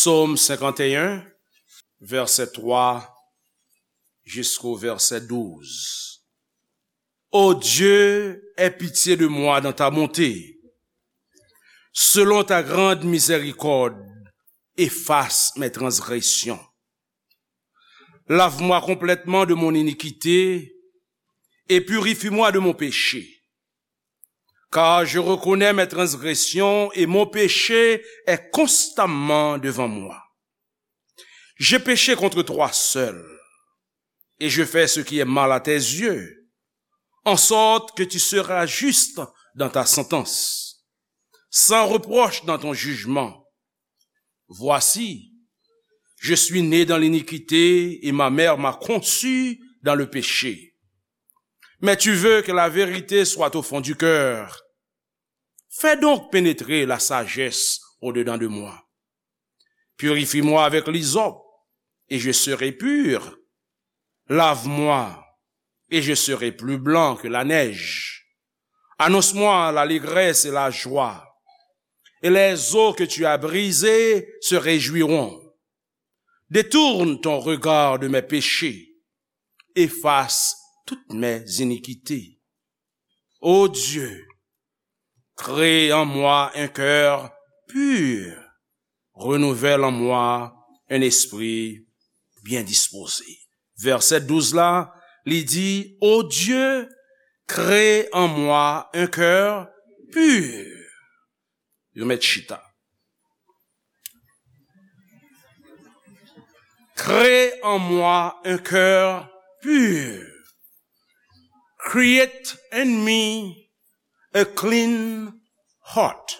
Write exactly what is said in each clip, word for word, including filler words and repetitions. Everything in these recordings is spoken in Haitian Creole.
Psaume cinquante et un, verset trois jusqu'au verset douze. Ô Dieu, aie pitié de moi dans ta bonté. Selon ta grande miséricorde, efface mes transgressions. Lave-moi complètement de mon iniquité et purifie-moi de mon péché. Car je reconnais mes transgressions et mon péché est constamment devant moi. J'ai péché contre toi seul, et je fais ce qui est mal à tes yeux, en sorte que tu seras juste dans ta sentence, sans reproche dans ton jugement. Voici, je suis né dans l'iniquité, et ma mère m'a conçu dans le péché. Mais tu veux que la vérité soit au fond du cœur. Fais donc pénétrer la sagesse au-dedans de moi. Purifie-moi avec l'hysope, et je serai pur. Lave-moi, et je serai plus blanc que la neige. Annonce-moi l'allégresse et la joie, et les os que tu as brisés se réjouiront. Détourne ton regard de mes péchés, efface toutes mes iniquités. Ô Dieu, crée en moi un cœur pur, renouvelle en moi un esprit bien disposé. Vèsè douz la, li di, Ô Dieu, crée en moi un cœur pur. Yo mèt chita. Crée en moi un cœur pur. Create in me a clean heart.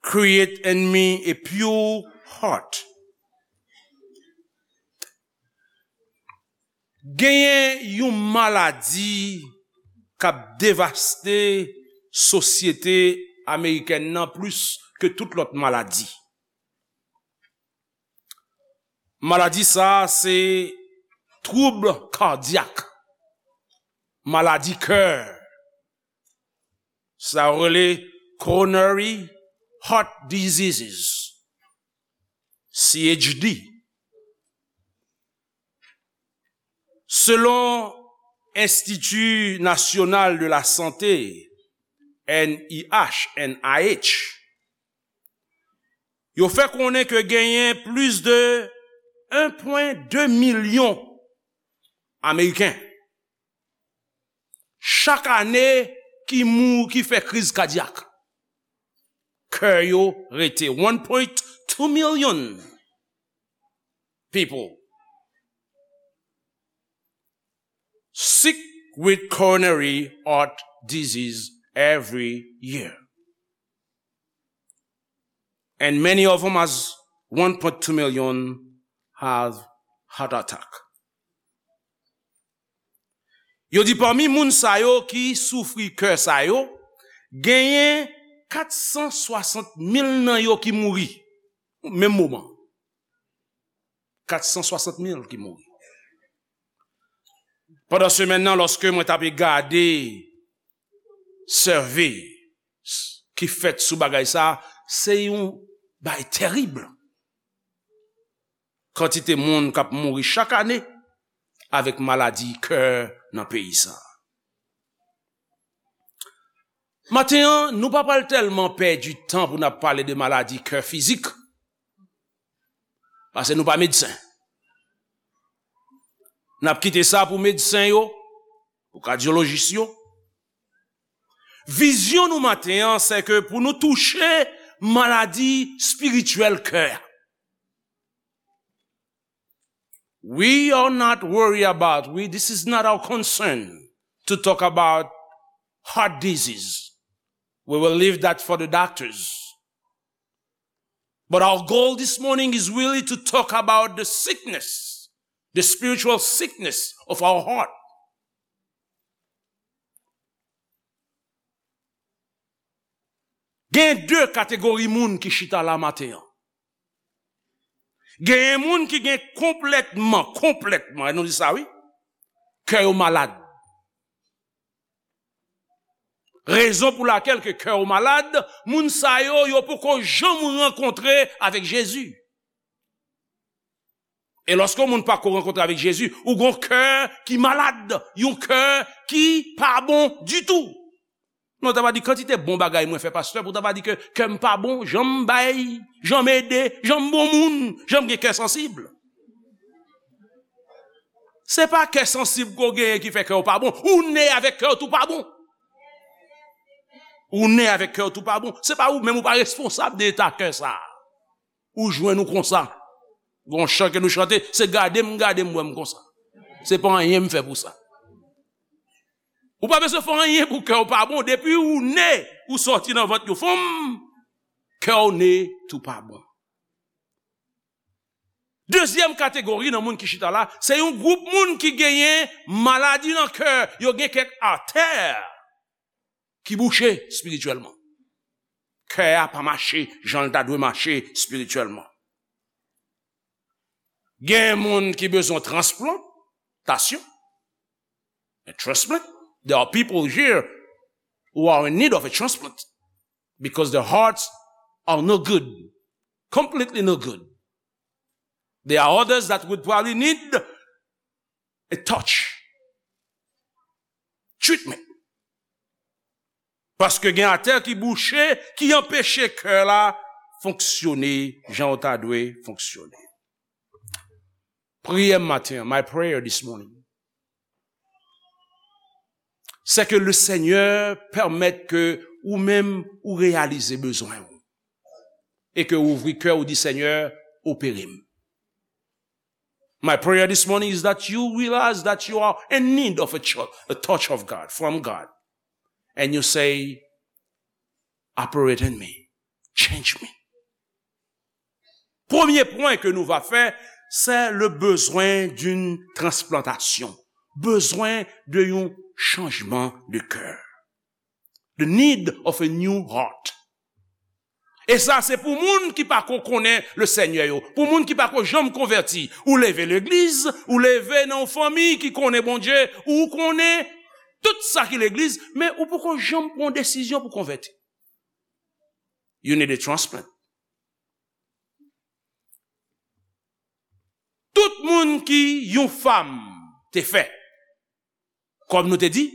Create in me a pure heart. Genyen yon maladi k ap devaste sosyete amerikèn nan plis ke tout lòt maladi. Maladi sa a se twoub kadyak, maladi kè. Sa yo rele coronary heart diseases, C H D. Selon Institut National de la Santé, N I H, N I H, yo fè konnen ke genyen plis de un pwen de milyon Ameriken chak ane ki mou-, ki fè kriz kadyak. Kè yo rete. One point two million people sick with coronary heart disease every year. And many of them, as one point two million, have heart attack. Yo di pami moun sa yo ki soufri kè sa yo, genyen kat san swasant mil nan yo ki mouri menm moman. Kat san swasant mil ki mouri. Pandan semèn nan, lòske mwen t ape gade sève ki fèt sou bagay sa, se yon bagay tèrib. Kantite moun k ap mouri chak ane avèk maladi kè nan peyi sa. Maten an, nou pa pral tèlman pèdi tan pou n ap pale de maladi kè fizik, paske nou pa medsen. N ap kite sa pou medsen yo, pou kadyolojis yo. Vizyon nou maten an, se ke pou nou touche maladi espirityèl kè a. We are not worried about, we, this is not our concern to talk about heart disease. We will leave that for the doctors. But our goal this morning is really to talk about the sickness, the spiritual sickness of our heart. Gen de kategori moun ki chita la maten an. Genyen moun ki gen konplètman, konplètman, e nou di sa wi, kè yo malad. Rezon pou lakèl ke kè w malad, moun sa yo, yo poko janm rankontre avèk Jezi. E lòske yon moun pa ko rankontre avèk Jezi, ou gon kè ki malad, yon kè ki pa bon ditou. Non, ta va di kantite bon bagay mwen fè, pastè, pou ta va di ke kè m pa bon, jan m bay, jan m ede, jan m bon moun, jan m gen kè sansib. Se pa kè sansib ke w genyen ki fè kè w pa bon. Ou ne avèk kè w tou pa bon. Ou ne avèk kè w tou pa bon. Se pa ou menm, ou pa responsab de eta kè sa. Ou jwenn ou konsa. Gon chan ke nou chante, se gade m, gade m, wè m konsa. Se pa anyen m fè pou sa. Ou pa bezwen fè anyen pou kè w pa bon. Depi ou ne, ou sòti nan vant yon fanm, kè w ne tou pa bon. Dezyèm kategori nan moun ki chita la, se yon gwoup moun ki genyen maladi nan kè, yo gen kèk atè ki bouche espirityèlman. Kè a pa mache jan l ta dwe mache espirityèlman. Gen moun ki bezwen transplantasyon. A transplant. There are people here who are in need of a transplant because their hearts are no good, completely no good. There are others that would probably need a touch, treatment. Paske gen atè ki bouche, ki anpeche kè la fonksyone jan w ta dwe fonksyone. Priyè m maten an, my prayer this morning, c'est que le Seigneur permette que ou menm ou reyalize bezwen w e ke ou ouvri kè ou di, Seigneur, opere m. My prayer this morning is that you realize that you are in need of a, cho- a touch of God, from God. And you say, operate in me, change me. Premye pwen ke nou va fè, c'est le besoin d'une transplantation. Bezwen de yon chanjman de kè. The need of a new heart. E sa, se pou moun ki pa ko konnen le Senyè yo, pou moun ki pa ko janm konvèti. Ou leve legliz, ou leve nan yon fanmi ki konnen Bondye, ou konnen tout sa ki legliz, men ou poko janm pran yon desizyon pou konvèti. You need a transplant. Tout moun ki yon fanm te fè, kòm nou te di,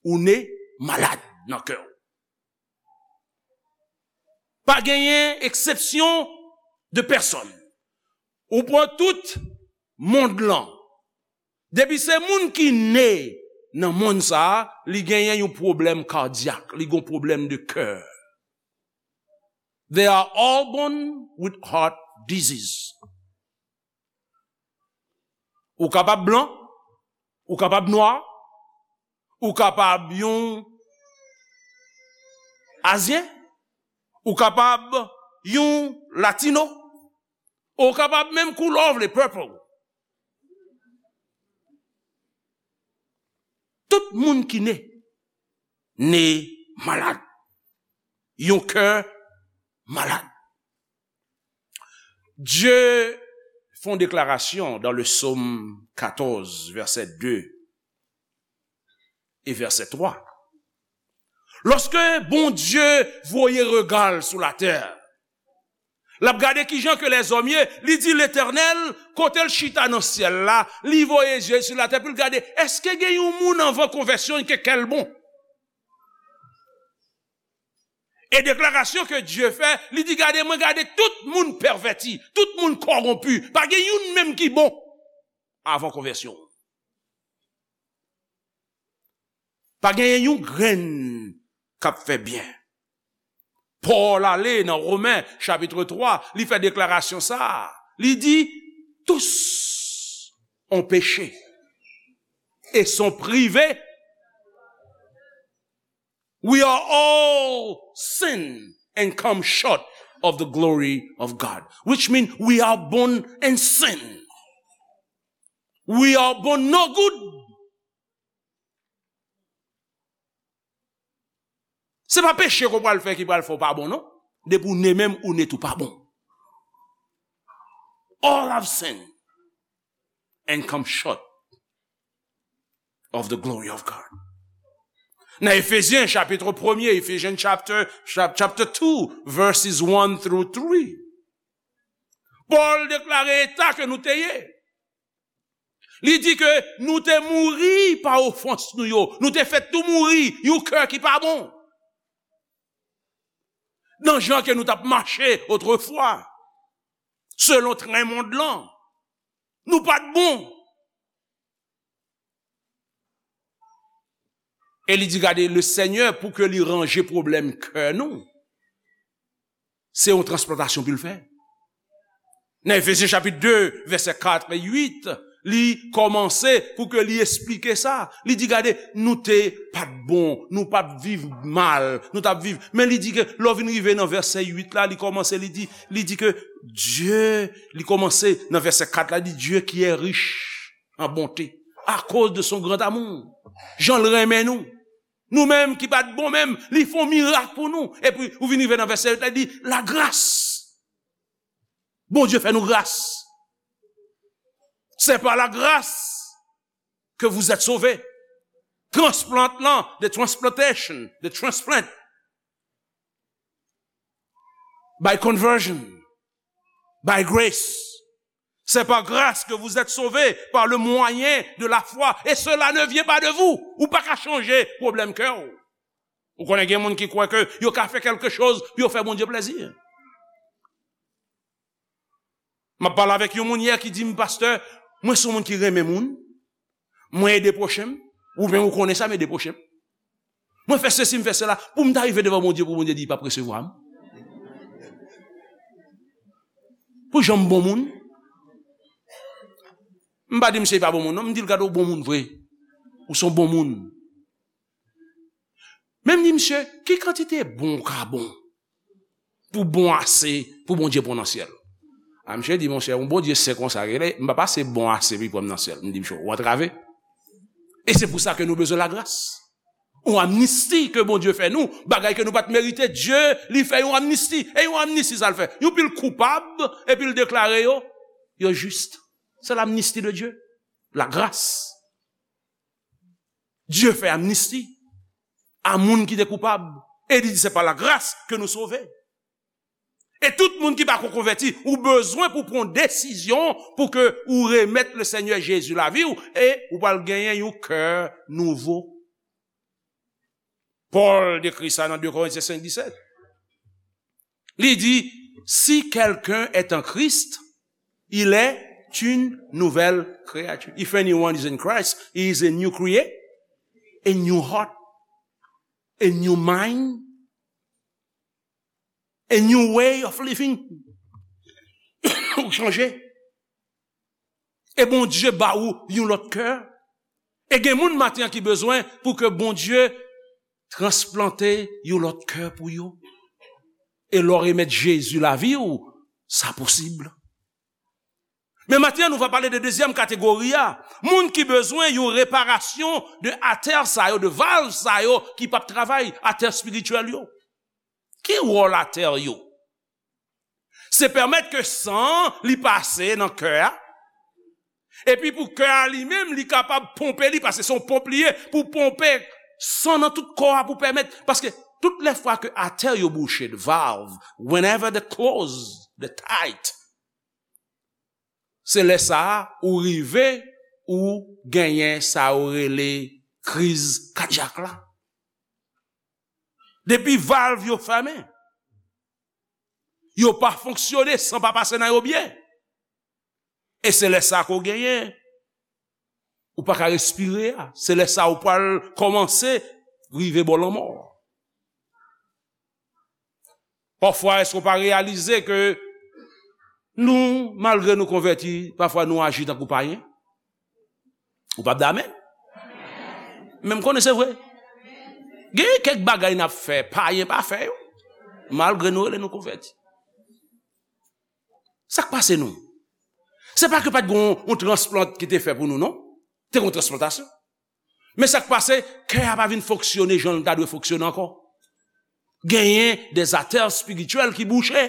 ou ne malad nan kè w. Pa genyen eksepsyon de pèsòn. Ou pran tout mond lan. Depi se moun ki ne nan mond sa a, li genyen yon pwoblèm kadyak, li gon pwoblèm de kè. They are all born with heart disease. Ou kapab blan, ou kapab nwa, ou kapab yon azyen, ou kapab yon latino, ou kapab menm koulè w vle, purple. Tout moun ki ne, ne malad. Yon kè malad. Dye fè yon deklarasyon dans le psaume quatorze, verset deux et verset trois. Lòske Bondye voye rega l sou latè, l ap gade kijan ke lèzòm ye, li di Letènèl, kote l chita nan syèl la, li voye zye l sou latè pou l gade, èske gen yon moun anvan konvèsyon ke kè l bon? E deklarasyon ke Dye fè, li di, gade, mwen gade tout moun pèvèti, tout moun kòwonpi, pa gen youn menm ki bon avan konvèsyon. Pa genyen yon grenn k ap fè byen. Pòl ale nan Women chapit twa, li fè deklarasyon sa a. Li di, tous ont péché et sont privés. We are all sin and come short of the glory of God, which means we are born in sin. We are born no good. Se pa peche ke w pral fè ki pral fè w pa bon, non. Depi w ne menm, ou ne tou pa bon. All have sinned and come short of the glory of God. Nan Efezyen chapit premye, Ephesians chapter, chap- chapter two, verses one through three, Pòl deklare eta ke nou te ye. Li di ke nou te mouri pa ofans nou yo. Nou te fèt tou mouri, yon kè ki pa bon. Nan jan ke nou t ap mache otrefwa, selon tren mond lan, nou pa t bon. E li di, gade, le Senyè, pou ke li ranje pwoblèm kè nou, se yon transplantasyon pou l fè. Nan Efezyen chapit de, vèsè kat e uit, li kòmanse pou ke li esplike sa. Li di, gade, nou te pa t bon, nou pa t viv mal, nou t ap viv. Men li di ke lè w vin rive nan vèsè uit la, li kòmanse, li di, li di ke Dye, li kòmanse nan vèsè kat la, li di, Dieu qui est riche en bonté, à cause de son grand amour. Jan l renmen nou. Nou menm ki pa t bon menm, li fè yon mirak pou nou. Epi, ou vin rive nan vèsè uit la, li di, la grâce. Bondye fè nou gras. C'est par la grâce que vous êtes sauvés. Transplant lan, the transplantation, the transplant. By conversion, by grace. C'est par grâce que vous êtes sauvés par le moyen de la foi. Et cela ne vient pas de vous. Ou pa ka chanje pwoblèm kè w. Ou konnen gen moun ki kwè ke yo ka fè kèlke choz pou yo fè Bondye plezi. M ap pale avèk yon moun yè ki di m, pastè, mwen se yon moun ki renmen moun, mwen ede pwochen m, ou menm ou konnen sa, m ede pwochen m. Mwen fè sesi, m fè sela, pou m ta rive devan Bondye, pou Bondye di, li p ap resevwa m. Pou jan m bon moun. M pa di misye pa bon moun, non, m di l gade w bon moun vre. Ou se yon bon moun. Men m di misye, ki kantite bon ou ka bon? Pou bon ase, pou Bondye pran nan syèl. A, misye di, monchè, yon Bondye sen konsa, rele, m pa pase bon ase pou l pran m nan syèl. M di, misye, ou antrave. E se pou sa ke nou bezwen lagras. Yon amnisti ke Bondye fè nou, bagay ke nou pa t merite, Dye, li fè yon amnisti. E yon amnisti, sa l fè? Yon pil koupab, epi l deklare yo, yo jis. Se l'amnistie de Dieu. La grâce. Dye fè amnisti a moun ki te koupab. E li di, c'est par la grâce que nous sauvés. E tout moun ki pa ko konvèti, ou bezwen pou pran desizyon pou ke ou remèt le Senyè Jezi lavi w e ou pral genyen yon kè nouvo. Pòl dekri sa nan de Korentyen senk disèt. Li di, si quelqu'un est en Christ, il est une nouvelle créature. If anyone is in Christ, he is a new create, a new heart, a new mind, a new way of living. Ou chanje. E Bondye ba ou yon lòt kè. E gen moun maten an ki bezwen pou ke Bondye transplante yon lòt kè pou yo. E lè w remèt Jezi lavi w, sa posib. Men maten an, nou va pale de dezyèm kategori a. Moun ki bezwen yon reparasyon de atè sa yo, de valv sa yo ki p ap travay, atè espirityèl yo. Ki wòl atè yo? Se pèmèt ke san an li pase nan kè a. Epi pou kè a li menm, li kapab ponpe li, paske se yon ponp li ye, pou ponpe san nan tout kò a, pou pèmèt, paske tout lè fwa ke atè yo bouche, the valve, whenever they close, the tight, se lè sa a ou rive, ou genyen sa yo rele kriz kadyak la. Depi valv yo fèmen, yo pa fonksyone, san pa pase nan yo byen. E se lè sa a ke w genyen, ou pa ka respire a. Se lè sa a ou pral kòmanse rive bò lanmò. Pafwa, èske w pa reyalize ke nou, malgre nou konvèti, pafwa nou aji tankou payen? Ou p ap di amèn? Men m konnen se vre. Gen kèk bagay n ap fè, payen pa fè yo. Malgre nou rele nou konvèti. Sa k pase nou? Se pa ke pa t gen yon, yon transplant ki te fè pou nou, non. Te gen yon transplantasyon. Men sa k pase, kè a pa vin fonksyone jan l ta dwe fonksyone ankò. Genyen de atè espirityèl ki bouche,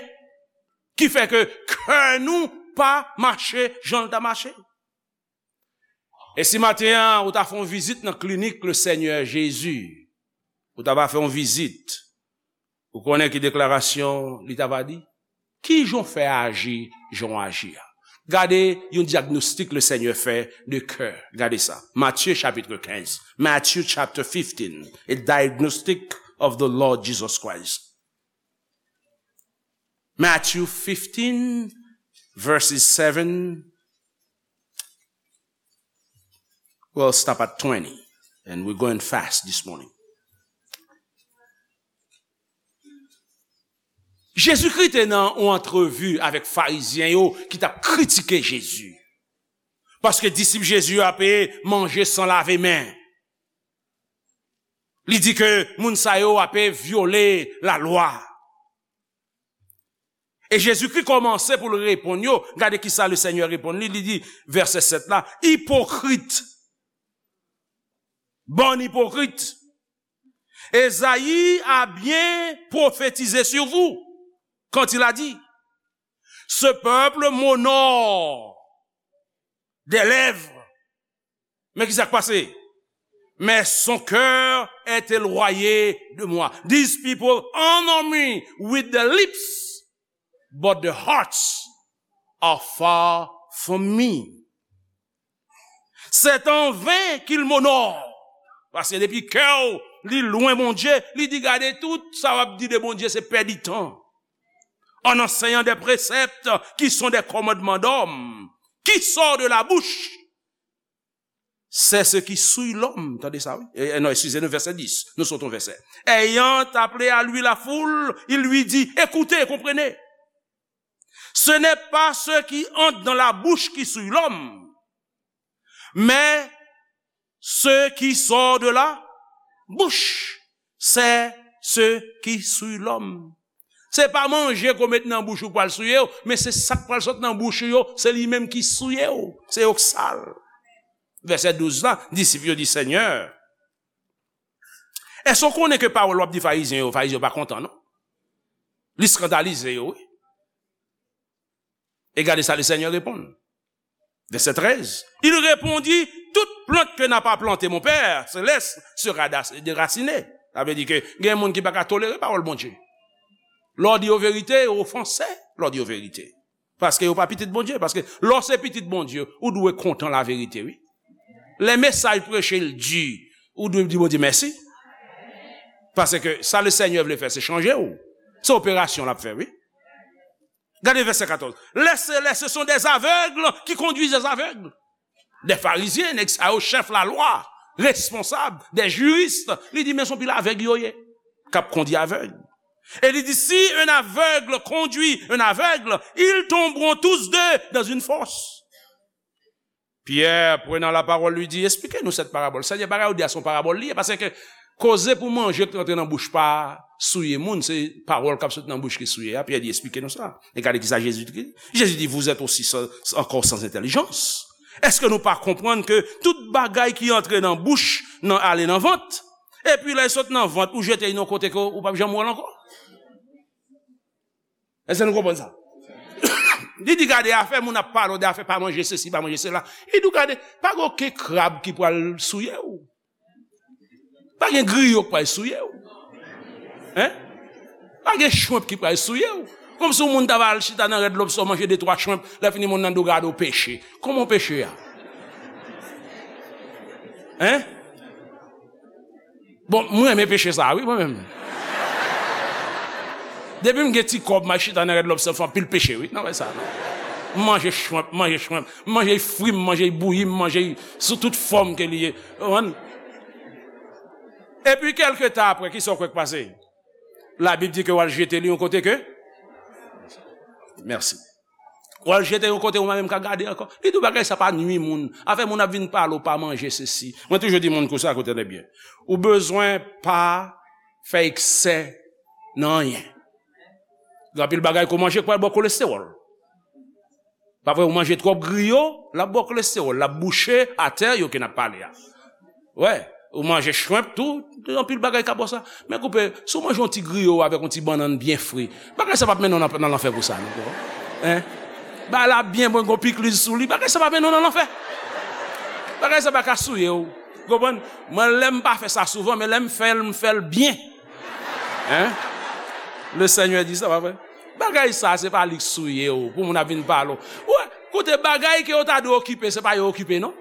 ki fè ke kè nou pa mache jan l ta mache. E si maten an, ou ta fè yon vizit nan klinik le Senyè Jezi, ou ta va fè yon vizit, ou konnen ki deklarasyon li ta va di? Ki jan w fè aji, jan w aji a? Gade yon dyagnostik Lesenyè fè de kè. Gade sa. Matye chapit kenz. Matthew chapter fifteen, a diagnostic of the Lord Jesus Christ. Matthew fifteen, verses seven. We'll stop at twenty, and we're going fast this morning. Jezikri te nan yon antrevi avèk Farizyen yo ki t ap kritike Jezi. Paske disip Jezi yo ape manje san lave men. Li di ke moun sa yo ape vyole lalwa. E Jezikri kòmanse pou l reponn yo. Gade ki sa Lesenyè reponn li. Li di, vèsè sèt la, ipokrit, bann ipokrit, Esaïe a bien prophétisé sur vous quand il a dit, ce peuple m'honore des lèvres. Men ki sa k pase? Mais son cœur est éloigné de moi. These people honor me with the lips, but the hearts are far from me. C'est en vain qu'il m'honore. Paske depi kè w li lwen Bondye, li di, gade, tout sa w ap di de Bondye se pèdi tan. En enseignant des préceptes qui sont des commandements d'hommes, qui sort de la bouche, c'est ce qui souille l'homme. Tande sa, wi. E, e, non, excusez-nous, verset dix. Nous sautons verset. Ayant appelé à lui la foule, il lui dit, écoutez, comprenez. Ce n'est pas ce qui entre dans la bouche qui souille l'homme, mais ce qui sort de la bouche, c'est ce qui souille l'homme. Se pa manje ke w met nan bouch ou k pral souye w, men se sa k pral sot nan bouch ou yo, se li menm ki souye w. Se yo k sal. Vèsè douz la, disip yo di, Senyè, èske w konnen ke pawòl w ap di Farizyen yo, Farizyen yo pa kontan, non? Li eskandalize yo, wi. E gade sa Lesenyè reponn. Vèsè trèz. Il répondit, toute plante que n'a pas planté mon Père céleste sera da-, déracinée. Sa vle di ke gen moun ki pa ka tolere pawòl Bondye. Lè w di yo verite, yo ofanse lè w di yo verite. Paske yo pa pitit Bondye. Paske lè w se pitit Bondye, ou dwe kontan laverite, wi. Lè mesaj preche l di, ou dwe di Bondye mèsi. Paske sa Lesenyè vle fè, se chanje w. Se operasyon l ap fè, wi. Gade vèsè katòz. Les célestes, ce sont des aveugles qui conduisent des aveugles. Des pharisiens, nèg sa yo, chèf lalwa, responsab, des juristes. Li di, men se yon pil avèg yo ye, k ap kondui avèg. E li di, si un aveugle conduit un aveugle, ils tomberont tous deux dans une fosse. Pierre, prenant la parole, lui dit, expliquez-nous cette parabole. Senyè, bagay ou di a se yon parabòl li ye, paske koze pou manje ki antre nan bouch pa souye moun, se pawòl k ap sot nan bouch ki souye a. Pyè di, expliquez-nous cela. E gade ki sa Jezi di. Jezi di, vous êtes aussi sans, encore sans intelligence. Èske nou pa konprann ke tout bagay ki antre nan bouch, nan, ale nan vant, epi lè l sot nan vant, ou jete l nan kote ke ou p ap janm wè l ankò? Èske nou konprann sa? Li di, gade, afè moun ap pale w de afè pa manje sesi, pa manje sela. Li di w, gade, pa gen okenn krab ki pral souye w. Pa gen griyo k pral souye w. Hein? Pa gen chwenp ki pral souye w. Kòmsi yon moun ta va al chita nan Rèd Lobstè, manje de twa chwenp, lè fini moun nan di w gade w peche. Kòman w peche a? Hein? Bon, mwen renmen peche sa, wi, mwen menm. Depi m gen ti kòb, m al chita nan Rèd Lobstè, m fè anpil peche, wi. Nan wè sa, non. M manje chwenp, m manje chwenp. M manje fri, m manje bouyi, m manje sou tout fòm ke li ye. Ou konprann? Epi, kèlke tan apre, ki sa w kwè k pase? Labib di ke w al jete li yon kote ke? Mèsi. W al jete yon kote, ou pa menm ka gade ankò. Li di w bagay sa pa nui moun. Afè moun ap vin pale w pa manje sesi. Mwen toujou di moun konsa, koute byen. Ou bezwen pa fè eksè nan anyen. Gen anpil bagay ke w manje k pral ba w kolestewòl. Pa vre, ou manje twòp griyo, l ap ba w kolestewòl, l ap bouche atè yo ke n ap pale a. Wè, ou manje chwenp tou, gen anpil bagay k ap ba w sa. Men koupe, si w manje yon ti griyo avèk yon ti bannann byen fre, bagay sa p ap mennen w nan, nan lanfè pou sa, non, bro. Hein? Bagay la byen bon, gon pikliz sou li, bagay sa p ap mennen w nan lanfè. Bagay sa pa ka souye w. Konprann? Mwen, lè m pa fè sa souvan, men lè m fè l, m fè l byen. Hein? Le Seigneur di sa, pa vre? Bagay sa, se pa li k souye w, pou moun ap vin pale w. Wè, koute, bagay ke yo ta dwe okipe, se pa yo okipe, non.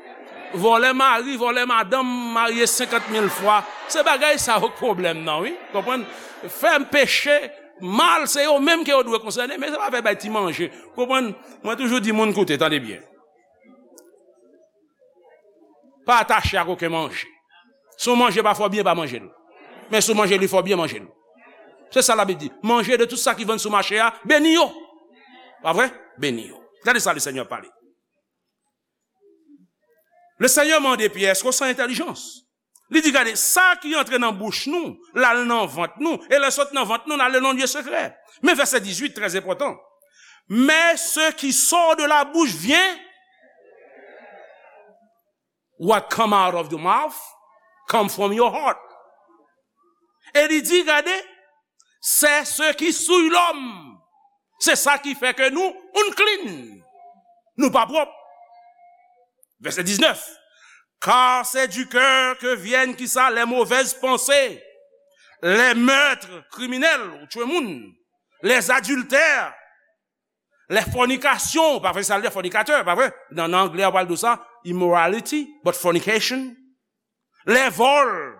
Vòlè mari, vòlè madanm, marye senkant mil fwa. Se bagay sa yo k pwoblèm nan, wi. Konprann? Fè peche, mal, se yo menm ke yo dwe konsène, men se pa fè bay ti manje. Konprann? Mwen toujou di moun, koute, tande byen. Pa atache ak okenn manje. Si w manje pa fè w byen, pa manje l. Men si w manje li fè w byen, manje l. Se sa Labib di. Manje de tout sa ki vann sou mache a, beni yo. Pa vre? Beni yo. Gade sa Lesenyè pale. Lesenyè mande Pyè, èske w san entèlijans? Li di, gade, sa ki antre nan bouch nou, l al nan vant nou, e lè sot nan vant nou, l al nan lye sekrè. Men vèsè dizuit, trè enpòtan. Mais ce qui sort de la bouche vient, what come out of the mouth come from your heart. E li di, gade, c'est ce qui souille l'homme. Se sa ki fè ke nou unclean. Nou pa pwòp. Vèsè diznèf. Car c'est du cœur que viennent, kisa, les mauvaises pensées, les meurtres criminels, ou tchwe moun, les adultères, les fornications, pa vre, sa l di fornicateur, pa vre? Nan, nan anglè, yo pral di sa, immorality, but fornication, les vols,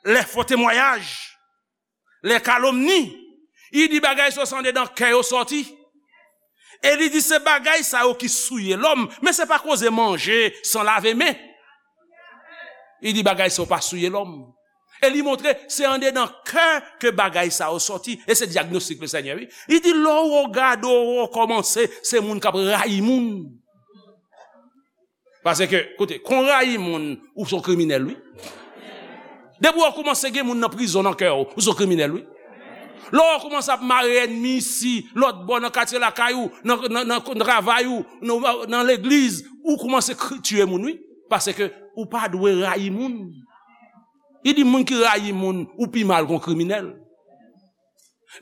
les faux témoignages, les calomnies. Li di bagay sa yo se andedan kè yo sòti. E li di se bagay sa yo ki souye lòm, men se pa koze manje san lave men. Li di bagay sa yo pa souye lòm. E li montre se andedan kè ke bagay sa yo sòti. E se dyagnostik Lesenyè, wi. Li di lè w gade w kòmanse, se moun k ap rayi moun. Paske, koute, kon rayi moun, ou se yon kriminèl, wi. Depi w kòmanse gen moun nan prizon nan kè w, ou se yon kriminèl, wi. Lè w kòmanse ap mare ènmi isi, lòt bò, nan katye lakay ou, nan, nan, nan, nan travay ou, nan, nan legliz, ou kòmanse kri-, tiye moun, wi. Paske ou pa dwe rayi moun. Li di moun ki rayi moun, ou pi mal ke yon kriminèl.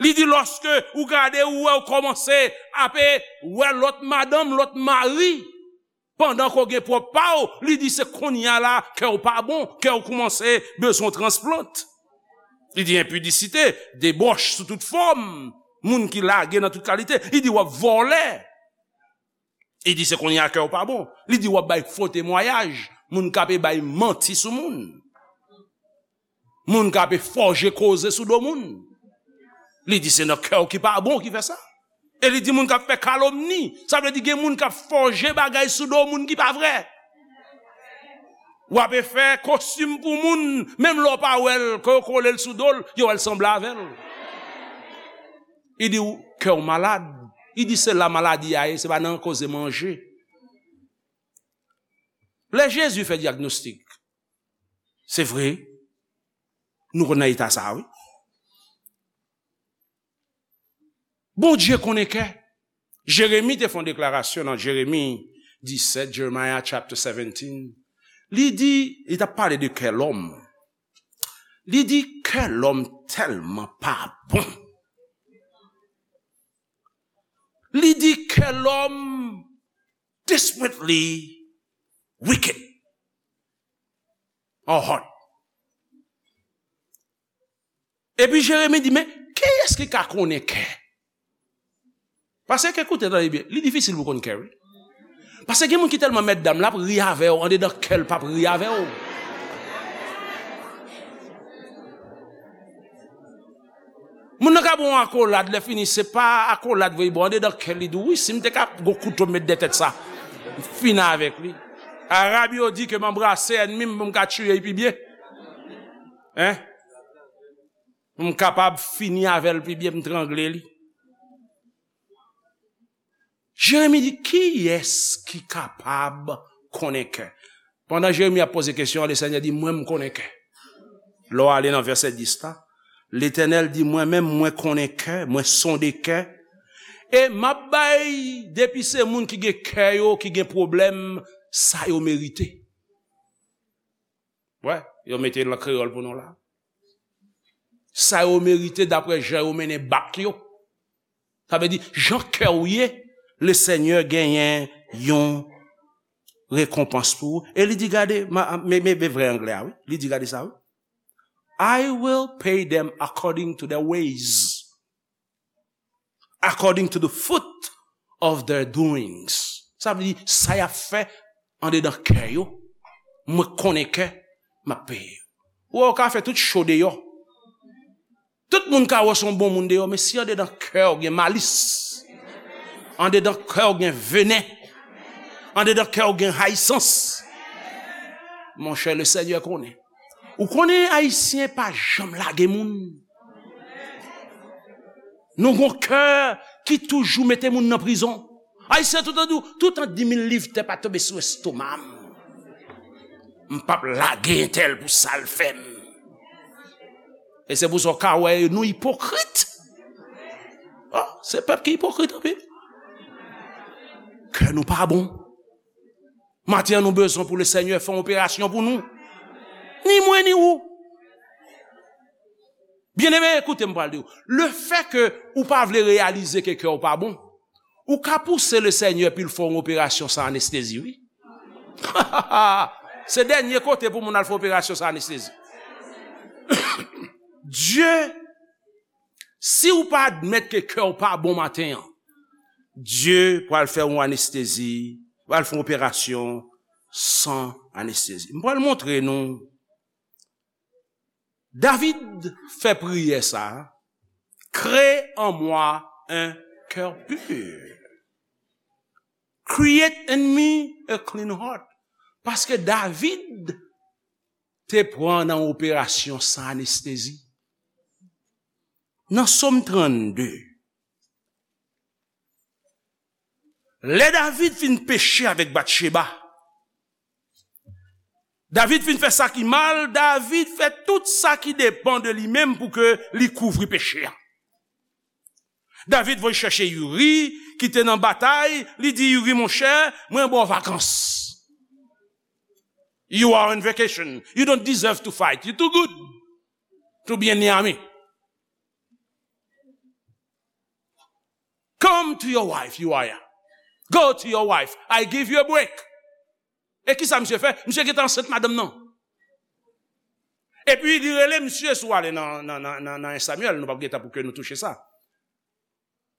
Li di lòske ou gade, ou wè, ou kòmanse ape wè lòt madanm, lòt mari, pandan ke w gen pwòp pa w, li di se kounye a la, kè w pa bon, kè w kòmanse bezwen transplant. Li di enpidisite, debòch sou tout fòm, moun ki lage nan tout kalite, li di w ap vòlè. Li di se kounye a kè w pa bon. Li di w ap bay fo temwayaj, moun k ape bay manti sou moun. Moun k ape fòje koze sou do moun. Li di se nan kè w ki pa bon ki fè sa. E li di moun k ap fè kalomni. Sa vle di gen moun k ap fòje bagay sou do moun ki pa vre. W ape fè kostim pou moun, menm lè w pa wè l, ke yo kole l sou do l, yo wè l sanble avè l. Li di w kè w malad. Li di se la maladi a ye, se pa nan koze manje. Lè Jezi fè dyagnostik, se vre, nou konn nan eta sa a, wi. Bondye konnen kè. Jeremi te fè yon deklarasyon nan Jeremi disèt, Jeremiah chapter seventeen. Li di, li t ap pale de kè lòm. Li di kè lòm tèlman pa bon. Li di kè lòm desperately wicked. Our heart. Epi Jeremi di, men kiyès ki ka konnen kè? Paske, koute, tande byen, li difisil pou konn kè, wi. Paske gen moun ki tèlman mèt dam, l ap ri avè w, andedan kè l p ap ri avè w. Moun nan ka ba w yon akolad, lè fini, se pa akolad vre, bon, andedan kè li di w, wi, si m te ka gon kouto m met dèyè tèt sa, m fini avèk li. Arab yo di ke m anbrase ènmi m pou m ka tiye l pi byen. Hein? M kapab fini avè l pi byen, m trangle li. Jeremi di, kiyès ki kapab konnen kè? Pandan Jeremi ap poze kesyon an, Lesenyè di, mwen, m konnen kè. Lè w ale nan vèsè dis la, Letènèl di, mwen menm, mwen konnen kè, mwen sonde kè. E m ap bay, depi se moun ki gen kè yo, ki gen pwoblèm, sa yo merite. Wè, yo mete l an kreyòl pou nou la. Sa yo merite daprè jan yo mennen bak yo. Sa vle di, jan kè w ye, Lesenyè genyen yon rekonpans pou ou. E li di, gade, ma- men men- men vrè anglè a, wi. Li di, gade sa, wi. "I will pay them according to their ways. According to the fruit of their doings." Sa vle di, sa y ap fè andedan kè yo, mwen konnen kè m ap peye yo. Ou wè, ou ka fè tout cho deyò. Tout moun ka wè w se yon bon moun deyò, men si andedan kè w gen malis, andedan kè w gen venen, andedan kè w gen rayisans, monchè, le Senyè konnen. Ou konnen Ayisyen pa janm lage moun. Nou gon kè ki toujou mete moun nan prizon. Ayisyen toutan di w, toutan di mil liv tè pa tonbe sou estoma m, m p ap lage entèl pou sa l fè m. E se pou sa w ka wè nou ipokrit. Oh, se pèp ki ipokrit anpil. Kè nou pa bon. Maten an, nou bezwen pou le Senyè fè yon operasyon pou nou. Ni mwen, ni ou. Byeneme, koute m pral di w. Le fè ke ou pa vle reyalize ke kè w pa bon, ou ka pouse le Senyè pou l fè yon operasyon san anestezi, wi. Se dènye kote pou moun al fè operasyon san anestezi. Dye, si w pa admèt ke kè w pa bon maten an, Dye pral fè yon anestezi, pral fè yon operasyon san anestezi. M pral montre nou. David fè priyè sa, "Crée en moi un cœur pur. Create in me a clean heart." Paske David te pran nan operasyon san anestezi. Nan Sòm trannde, lè David fin peche avèk Batcheba, David fin fè sa ki mal, David fè tout sa ki depann de li menm pou ke li kouvri peche a. David voye chèche Uri, ki te nan batay, li di, "Uri, monchè, mwen ba w vakans. You are on vacation. You don't deserve to fight. You too good to be in the army. Come to your wife, Uriah. Go to your wife. I give you a break." E kisa misye fè? Misye gentan ansent madanm nan. Epi li rele misye, si w ale nan, nan, nan, nan, nan en Samyèl, nou p ap gen tan pou ke nou touche sa.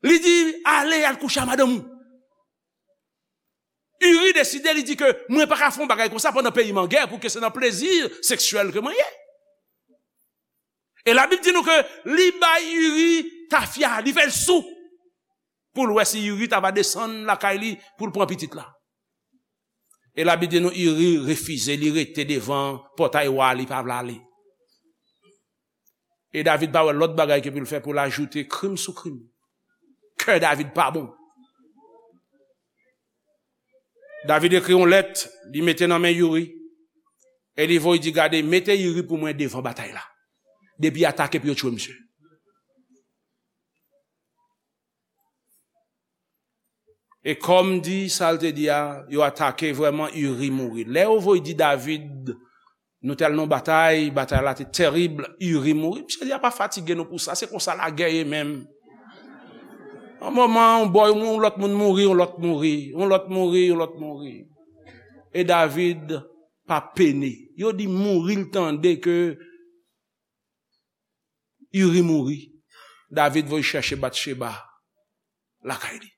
Li di, "Ale, al kouche a madanm ou." Uri deside, li di ke, "Mwen pa ka fè yon bagay konsa pandan peyi m an gè, pou ke se nan plezi seksyèl ke mwen ye." E Labib di nou ke li bay Uri tafya, li fè l sou, pou l wè si Uri ta va desann lakay li pou l pran pitit la. E Labib di nou Uri refize, li rete devan pòtay wa, li pa vle ale. E David pa wè lòt bagay ke pou l fè pou l ajoute krim sou krim. Kè David pa bon. David ekri yon lèt, li mete nan men Uri. E li voye di, "Gade, mete Uri pou mwen devan batay la. Depi atake pou yo tchwe misye." E kòm di sa l te di a, yo atake vrèman, Uri mouri. Lè yo voye di David, "Nou t al nan batay, batay la te tèrib, Uri mouri." Misye di, "A pa fatige nou pou sa, se konsa lagè ye menm. Yon moman, yon bò, yon lòt moun mouri, yon lòt mouri, yon lòt mouri, yon lòt mouri." E David pa pene. Yo di mouri, l tande ke Uri mouri. David voye chèche Batcheba lakay li.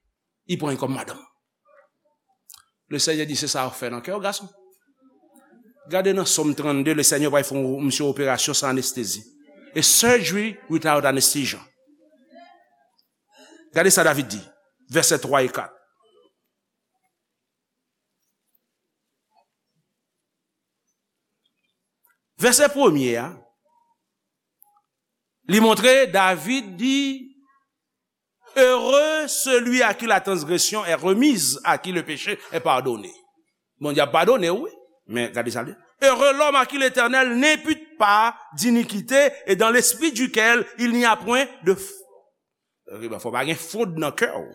Li pran l kòm madanm. Le Senyè di, "Se sa w fè nan kè w, gason." Gade nan Sòm trannde, le Senyè pral fè yon, misye, operasyon san anestezi. A surgery without anesthesia. Gade sa David di, vèsè twa e kat. Vèsè premye a, li montre David di, "Heureux celui à qui la transgression est remise, à qui le péché est pardonné." Bondye ap padone w, wi. Men gade sa l di. "Heureux l'homme à qui l'Éternel n'impute pas d'iniquité et dans l'esprit duquel il n'y a point de f-" Fò pa gen fwod nan kè w.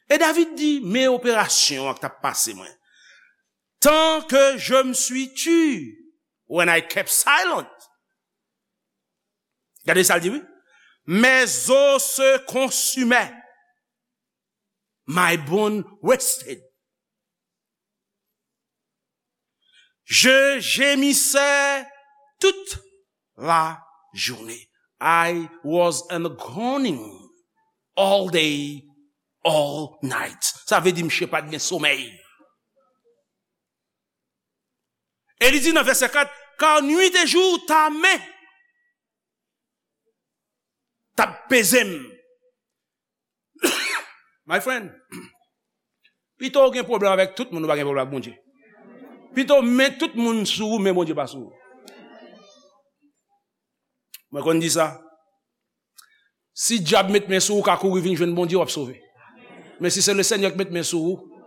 E David di, "Men operasyon an k t ap pase mwen. Tant que je me suis tu, when I kept silent." Gade sa l di, wi. "Mes os se consumaient, my bone wasted." Je gémissais toute la journée. I was in groaning all day, all night. Sa vle di misye pa t gen somèy. E li di nan vèsè kat, car nuit et jour ta main t ap peze m. My friend, pito w gen pwoblèm avèk tout moun, ou pa gen pwoblèm ak Bondye. Pito men tout moun sou ou, men Bondye pa sou ou. Mwen konn di sa. Si dyab met men sou ou, ou ka kouri vin jwenn Bondye, w ap sove. Men si se Lesenyè ki met men sou ou,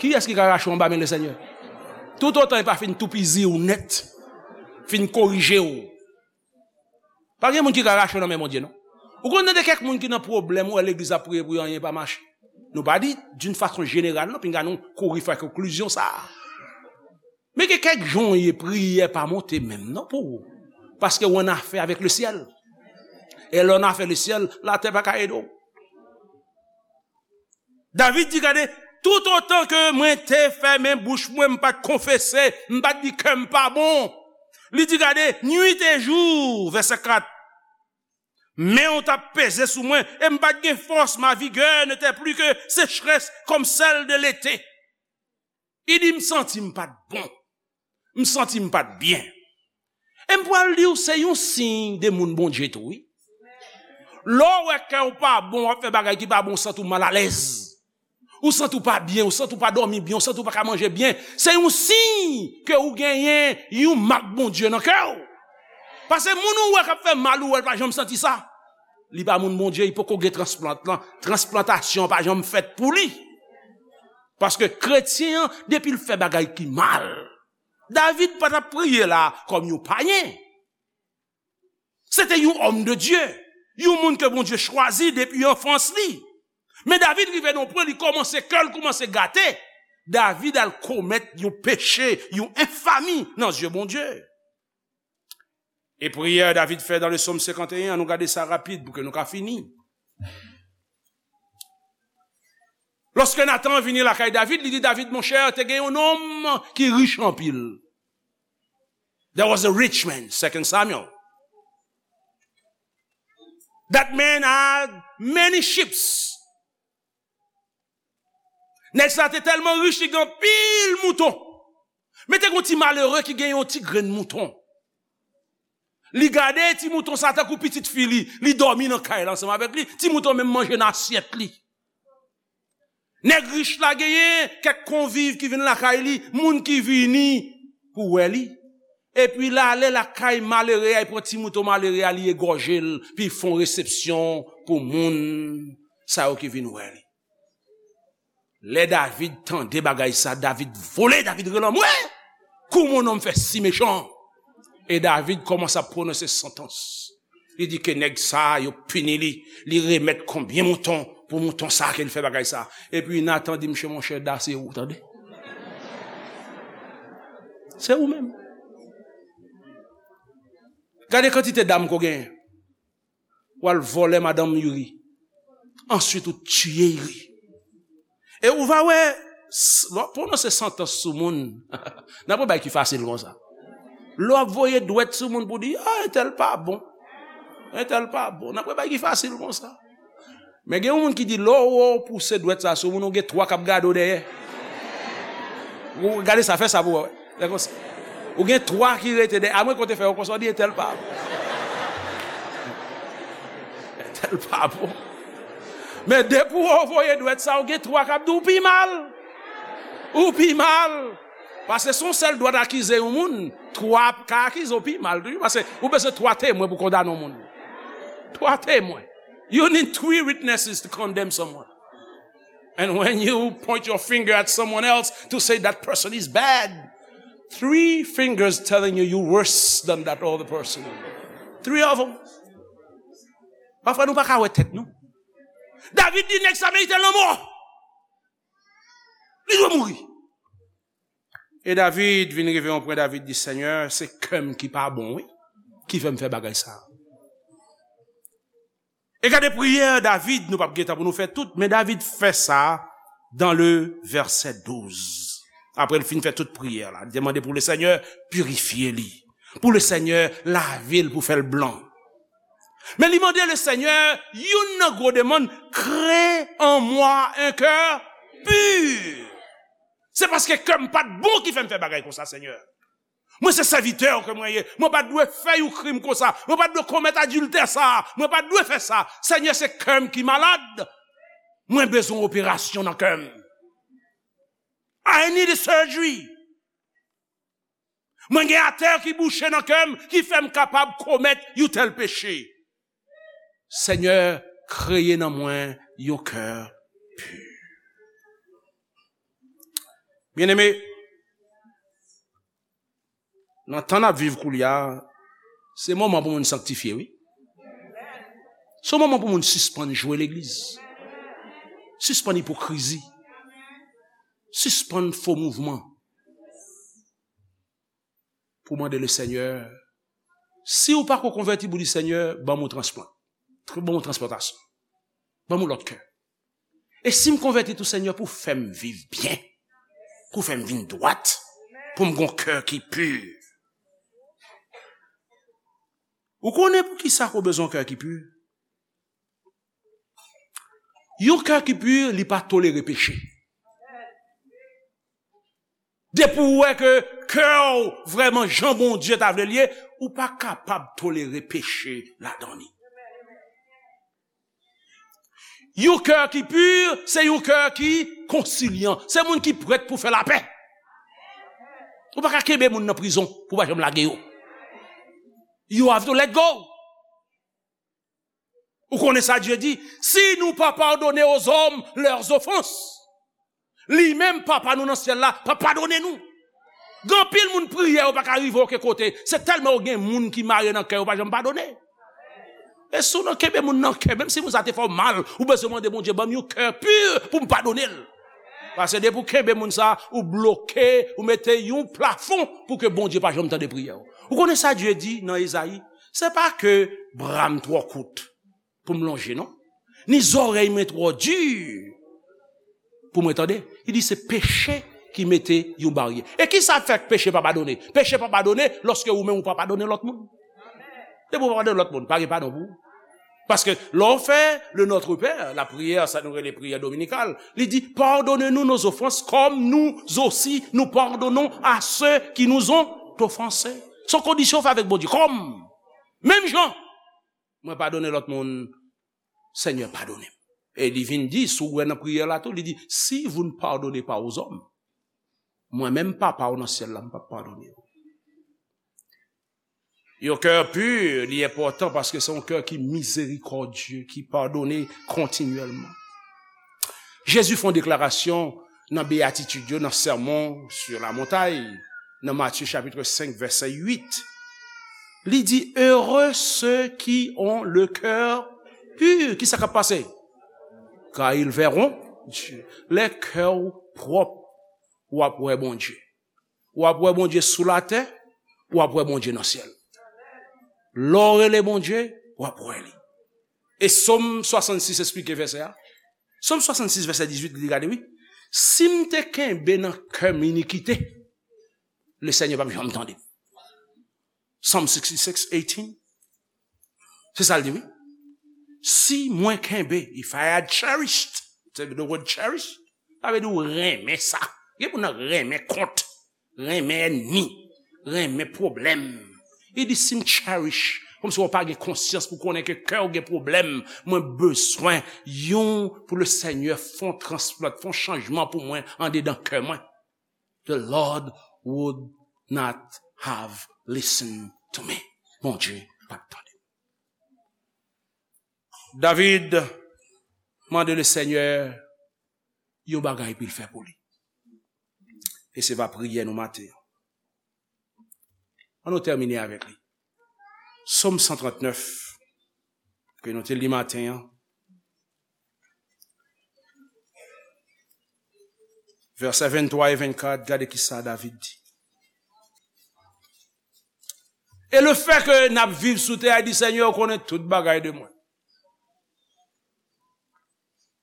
kiyès ki ka rache w anba men Lesenyè? Toutotan li pa fin toupizi w nèt, fin korije w. Pa gen moun ki ka rache w nan men Bondye, non. Ou konn tande kèk moun ki nan pwoblèm, ou wè legliz ap priye pou yo, anyen pa mache. Nou pa di d'une façon générale, non, pinga nou kouri fè konklizyon sa a. Men gen kèk jan w ye, priyè pa monte menm, non, pou ou. Paske w annafè avèk lesyèl. E lè w annafè lesyèl, latè pa ka ede w. David di, gade, toutotan ke mwen te fèmen bouch mwen, m pa t konfese, m pa t di kè m pa bon. Li di, gade, nuit et jour, vèsè kat, men w t ap peze sou mwen, e m pa t gen fòs, ma vigueur n'était plus que sécheresse comme celle de l'été. Li di, m santi m pa t bon. M santi m pa t byen. E m pral di w, se yon siy de moun Bondye tou, wi. Lè w wè kè w pa bon, w ap fè bagay ki pa bon, w santi w malalèz. Ou santi w pa byen, ou santi w pa dòmi byen, ou santi w pa ka manje byen. Se yon siy ke ou genyen yon mak Bondye nan kè w. Paske moun ou wè k ap fè mal, ou wè l pa janm santi sa. Li pa moun Bondye, li poko gen transplant lan. Transplantasyon pa janm fèt pou li. Paske kretyen an, depi l fè bagay ki mal, David pa t ap priye la kòm yon payen. Se te yon homme de Dieu, yon moun ke Bondye chwazi depi anfans li. Men David rive nan pwen, li kòmanse, kè l kòmanse gate. David al komèt yon peche, yon enfami nan zye Bondye. E priyè David fè dans le psaume cinquante et un, an nou gade sa rapid pou ke nou ka fini. Lòske Natan vini lakay David, li di David, monchè, te gen yon nonm ki rich anpil. There was a rich man, Second Samuel. That man had many sheep. Nèg sa te tèlman rich, li gen anpil mouton. Men te gen yon ti malere ki gen yon ti grenn mouton. Li gade ti mouton sa tankou pitit fi li, li dòmi nan kay la ansanm avèk li, ti mouton menm manje nan asyèt li. Nèg rich la genyen kèk konviv ki vin lakay li, moun ki vini pou wè li. Epi l ale lakay malere a, li pran ti mouton malere a, li egòje l, pi fè yon resepsyon pou moun sa yo ki vin wè li. Lè David tande bagay sa, David vole, David rele anmwe, comment un homme fait si méchant? E David kòmanse ap pwononse santans. Li di ke nèg sa, yo pini li, li remèt konbyen mouton pou mouton sa ke li fè bagay sa. Epi Natan di, msye, monchè, da se ou, tande. Se ou menm. Gade kantite dam ke w genyen. W al vòlè madanm Youri. Answit, ou tiye Youri. E ou va wè, s- lè w pwononse santans sou moun, n ap wè bagay ki fasil konsa. Lè w ap voye dwèt sou moun pou di, ah, entèl pa bon. Entèl pa bon. N ap wè bagay ki fasil konsa. Men gen yon moun ki di, lè w wè w pouse dwèt sa sou moun, ou gen twa k ap gade w dèyè. Ou gade sa, fè sa pou w wè. Fè konsa. Ou gen twa ki rete dèyè. Amwen kote fè yo konsa, w di entèl pa bon. Entèl pa bon. Men depi w voye dwèt sa, ou gen twa k ap di w pi mal. Ou pi mal. Paske se yon sèl dwèt akize yon moun, twa ka akize w pi mal. Paske ou bezwen twa temwen pou kondane yon moun. Twa temwen. You need three witnesses to condemn someone. And when you point your finger at someone else to say that person is bad, three fingers telling you you worse than that other person. Three of them. Pafwa nou pa ka wè tèt nou. David di nèg sa merite lanmò. Li dwe mouri. E David vin rive yon pwen, David di, Senyè, se kè m ki pa bon, wi, ki fè m fè bagay sa. E gade priyè David, nou p ap gen tan pou nou fè tout, men David fè sa dans le verset douze. Apre l fin fè tout priyè la, li te mande pou Lesenyè pirifye li, pou Lesenyè lave l, pou fè l blan. Men li mande Lesenyè youn nan gwo demann: Crée en moi un cœur pur. Se paske kè m pa t bon ki fè m fè bagay konsa, Senyè. Mwen se sèvitè w ke mwen ye. Mwen pa t dwe fè yon krim konsa. Mwen pa t dwe komèt adiltè sa a. Mwen pa t dwe fè sa. Senyè, se kè m ki malad. Mwen bezwen operasyon nan kè m. I need a surgery. Mwen gen atè ki bouche nan kè m, ki fè m kapab komèt yon tèl peche. Senyè, kreye nan mwen yon kè pi. Byeneme, nan tan n ap viv koulye a, se moman pou moun sanktifye, wi. Se moman pou moun sispann jwe legliz. Sispann ipokrizi. Sispann fo mouvman. Pou mande Lesenyè, si w pa ko konvèti, pou di, Senyè, ban m yon transplant. Tr-, ban m yon transplantasyon. Ban m yon lòt kè. E si m konvèti tou, Senyè, pou fè m viv byen, pou fè m vin dwat, pou m gon kè ki pi. Ou konnen poukisa ou bezwen kè ki pi? Yon kè ki pi, li pa tolere peche. Depi ou wè ke kè w vrèman jan Bondye ta vle l ye, ou pa kapab tolere peche ladan li. Yon kè ki pi, se yon kè ki konsilyan. Se moun ki prèt pou fè lapè. Ou pa ka kenbe moun nan prizon pou pa janm lage yo. You have to let go. Ou konnen sa Dye di? Si nou pa padone ozòm lèzofans, li menm, Papa nou nan syèl la, pa padone nou. Gen anpil moun priye, yo pa ka rive okenn kote. Se tèlman yo gen moun ki mare nan kè yo, pa janm padone. E si w nan kenbe moun nan kè, menm si moun sa te fè w mal, ou bezwen mande Bondye, ban m yon kè pi pou m padone l. Paske depi w kenbe moun sa, ou bloke, ou mete yon plafon pou ke Bondye pa janm tande priyè w. Ou konnen sa Dye di nan Ezayi? Se pa ke bra m twò kout pou m lonje, non. Ni zòrèy mwen twò di pou mwen tande. Li di se peche ki mete yon baryè. E ki sa fè peche pa padone? Peche pa padone lòske ou menm ou pa padone lòt moun. Depi ou pa padone lòt moun, pa gen padon pou ou. Paske lè w fè le Notre Père, lapriyè, sa nou rele priyè dominikal, li di, pardonnez-nous nos offenses comme nous aussi nous pardonnons à ceux qui nous ont offensés. Se yon kondisyon w fè avèk Bondye. Kòm, menm jan mwen padone lòt moun, Senyè, padone m. E li vin di, si w wè nan priyè la tou, li di, si vous ne pardonnez pas aux hommes, mwen menm, Papa w nan syèl la, m p ap padone w. Yon kè pi, li enpòtan paske se yon kè ki mizerikòdye, ki padone kontinyèlman. Jezi fè yon deklarasyon nan Beyatitid yo, nan Sermon sur la Montagne, nan Matye chapit senk, vèsè uit. Li di, heureux ceux qui ont le cœur pur. Kisa k ap pase? Car ils verront Dieu. Lè kè w pwòp, w ap wè Bondye. W ap wè Bondye sou latè, w ap wè Bondye nan syèl. Lè w rele Bondye, w ap wè li. E Sòm swasannsis esplike vèsè a. Sòm swasannsis, vèsè dizuit, li di, gade, wi. Si m te kenbe nan kè m inikite, Lesenyè p ap janm tande m. Psalm sixty-six eighteen. Se sa l di, wi. Si mwen kenbe, if I had cherished, se the word cherish, sa vle di w renmen sa. Gen moun nan renmen kont, renmen ènmi, renmen pwoblèm. Li di, si m cherish, kòmsi w pa gen konsyans pou konnen ke kè w gen pwoblèm, mwen bezwen yon pou Lesenyè fè yon transplant, fè yon chanjman pou mwen andedan kè mwen. The Lord would not have listened to me. Bondye p ap tande. David mande Lesenyè yon bagay pou l fè pou li. E se va priyè nou maten an. Ann nou tèmine avèk li. Sòm san trannèf, ke nou te li maten an. Vèsè venntwa e vennkat, gade kisa David di. E lefè ke n ap viv sou tè a, di, Senyè, ou konnen tout bagay de mwen.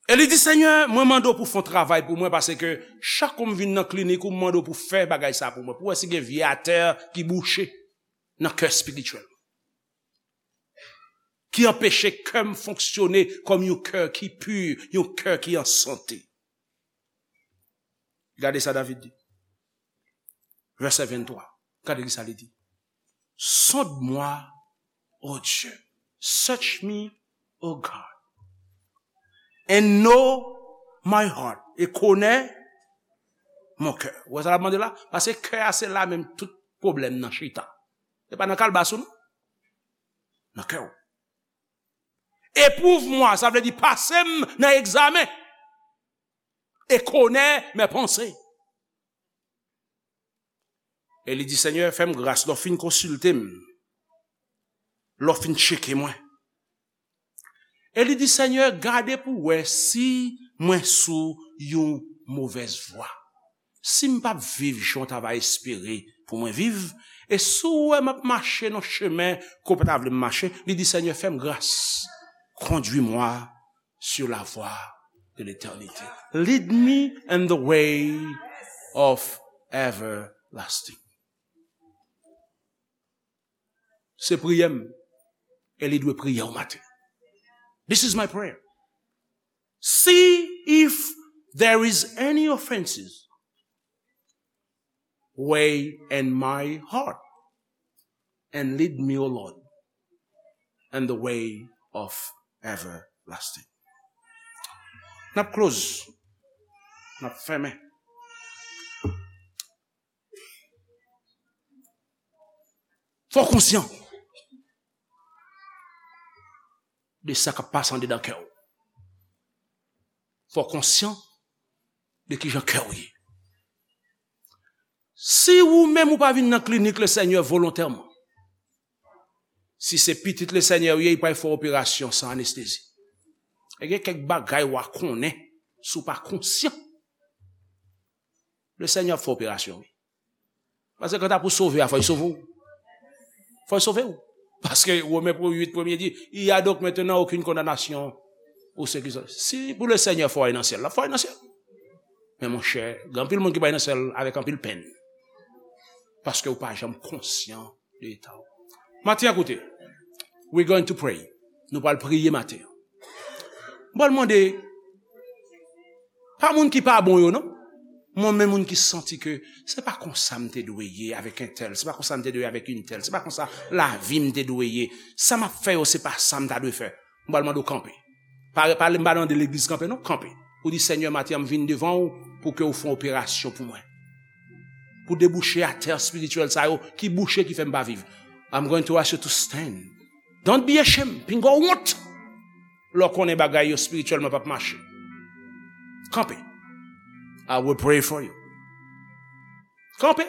E li di, Senyè, mwen mande w pou w fè yon travay pou mwen, paske chak kou m vin nan klinik ou, m mande w pou w fè bagay sa pou mwen, pou w wè si gen vye atè ki bouche nan kè espirityèl, ki anpeche kè m fonksyone kòm yon kè ki pi, yon kè ki an sante. Gade sa David di. Vèsè venntwa. Gade ki sa li di. Sonde mwen, o Dye. Search me, O God. And know my heart. E konnen mon kè. Ou wè sa l ap mande la? Paske kè a se la menm tout pwoblèm nan chita. Se pa nan kalbas ou non. Nan kè w. Éprouve-moi, sa vle di pase m nan egzamen. Et connais mes pensées. E li di, Senyè, fè m gras lè w fin konsilte m, lè w fin tcheke mwen. E li di, Senyè, gade pou w wè si mwen sou yon movèz vwa. Si m p ap viv jan w ta va espere pou mwen viv, e si w wè m ap mache nan chemen ke w pa ta vle m mache, li di, Senyè, fè m gras, conduis-moi sur la voie de l'éternité. Lead me in the way of everlasting. Se priyè m, e li dwe priyè w maten. This is my prayer. See if there is any offenses way in my heart, and lead me, O Lord, in the way of everlasting. N ap close. N ap fèmen. Fò w konsyan de sa k ap pase andedan kè w. Fò w konsyan de kijan kè w ye. Si ou menm ou pa vin nan klinik Lesenyè volontèman, si se pitit Lesenyè ou ye, li pral fè operasyon san anestezi. E gen kèk bagay w a konnen si w pa konsyan. Lesenyè ap fè operasyon, wi. Paske kanta pou sove a, fò l sove w. Fò l sove w. Paske Women pou uit premye di, il y a donc maintenant aucune condamnation pour ceux qui sont. Si pou Lesenyè fè w al nan syèl, l ap fè w al nan syèl. Men monchè, gen anpil moun ki pral nan syèl avèk anpil penn. Paske ou pa janm konsyan de eta w. Maten an, koute, we going to pray. Nou pral priye maten an. M pral mande, pa moun ki pa bon yo, non. Mwen, men moun ki santi ke se pa konsa m te dwe ye avèk entèl, se pa konsa m te dwe ye avèk entèl, se pa konsa lavi m te dwe ye. Sa m ap fè yo, se pa sa m ta dwe fè. M pral mande w kanpe. Pa, pa, m pa mande legliz kanpe, non, kanpe. Ou di, Senyè, maten an, m vin devan w pou ke w fè yon operasyon pou mwen. Pou debouche atè espirityèl sa yo, ki bouche, ki fè m pa viv. I'm going to ask you to stand. Don't be ashamed. Pinga w wont. Lè w konnen bagay yo espirityèlman p ap mache. Kanpe. I will pray for you. Kanpe.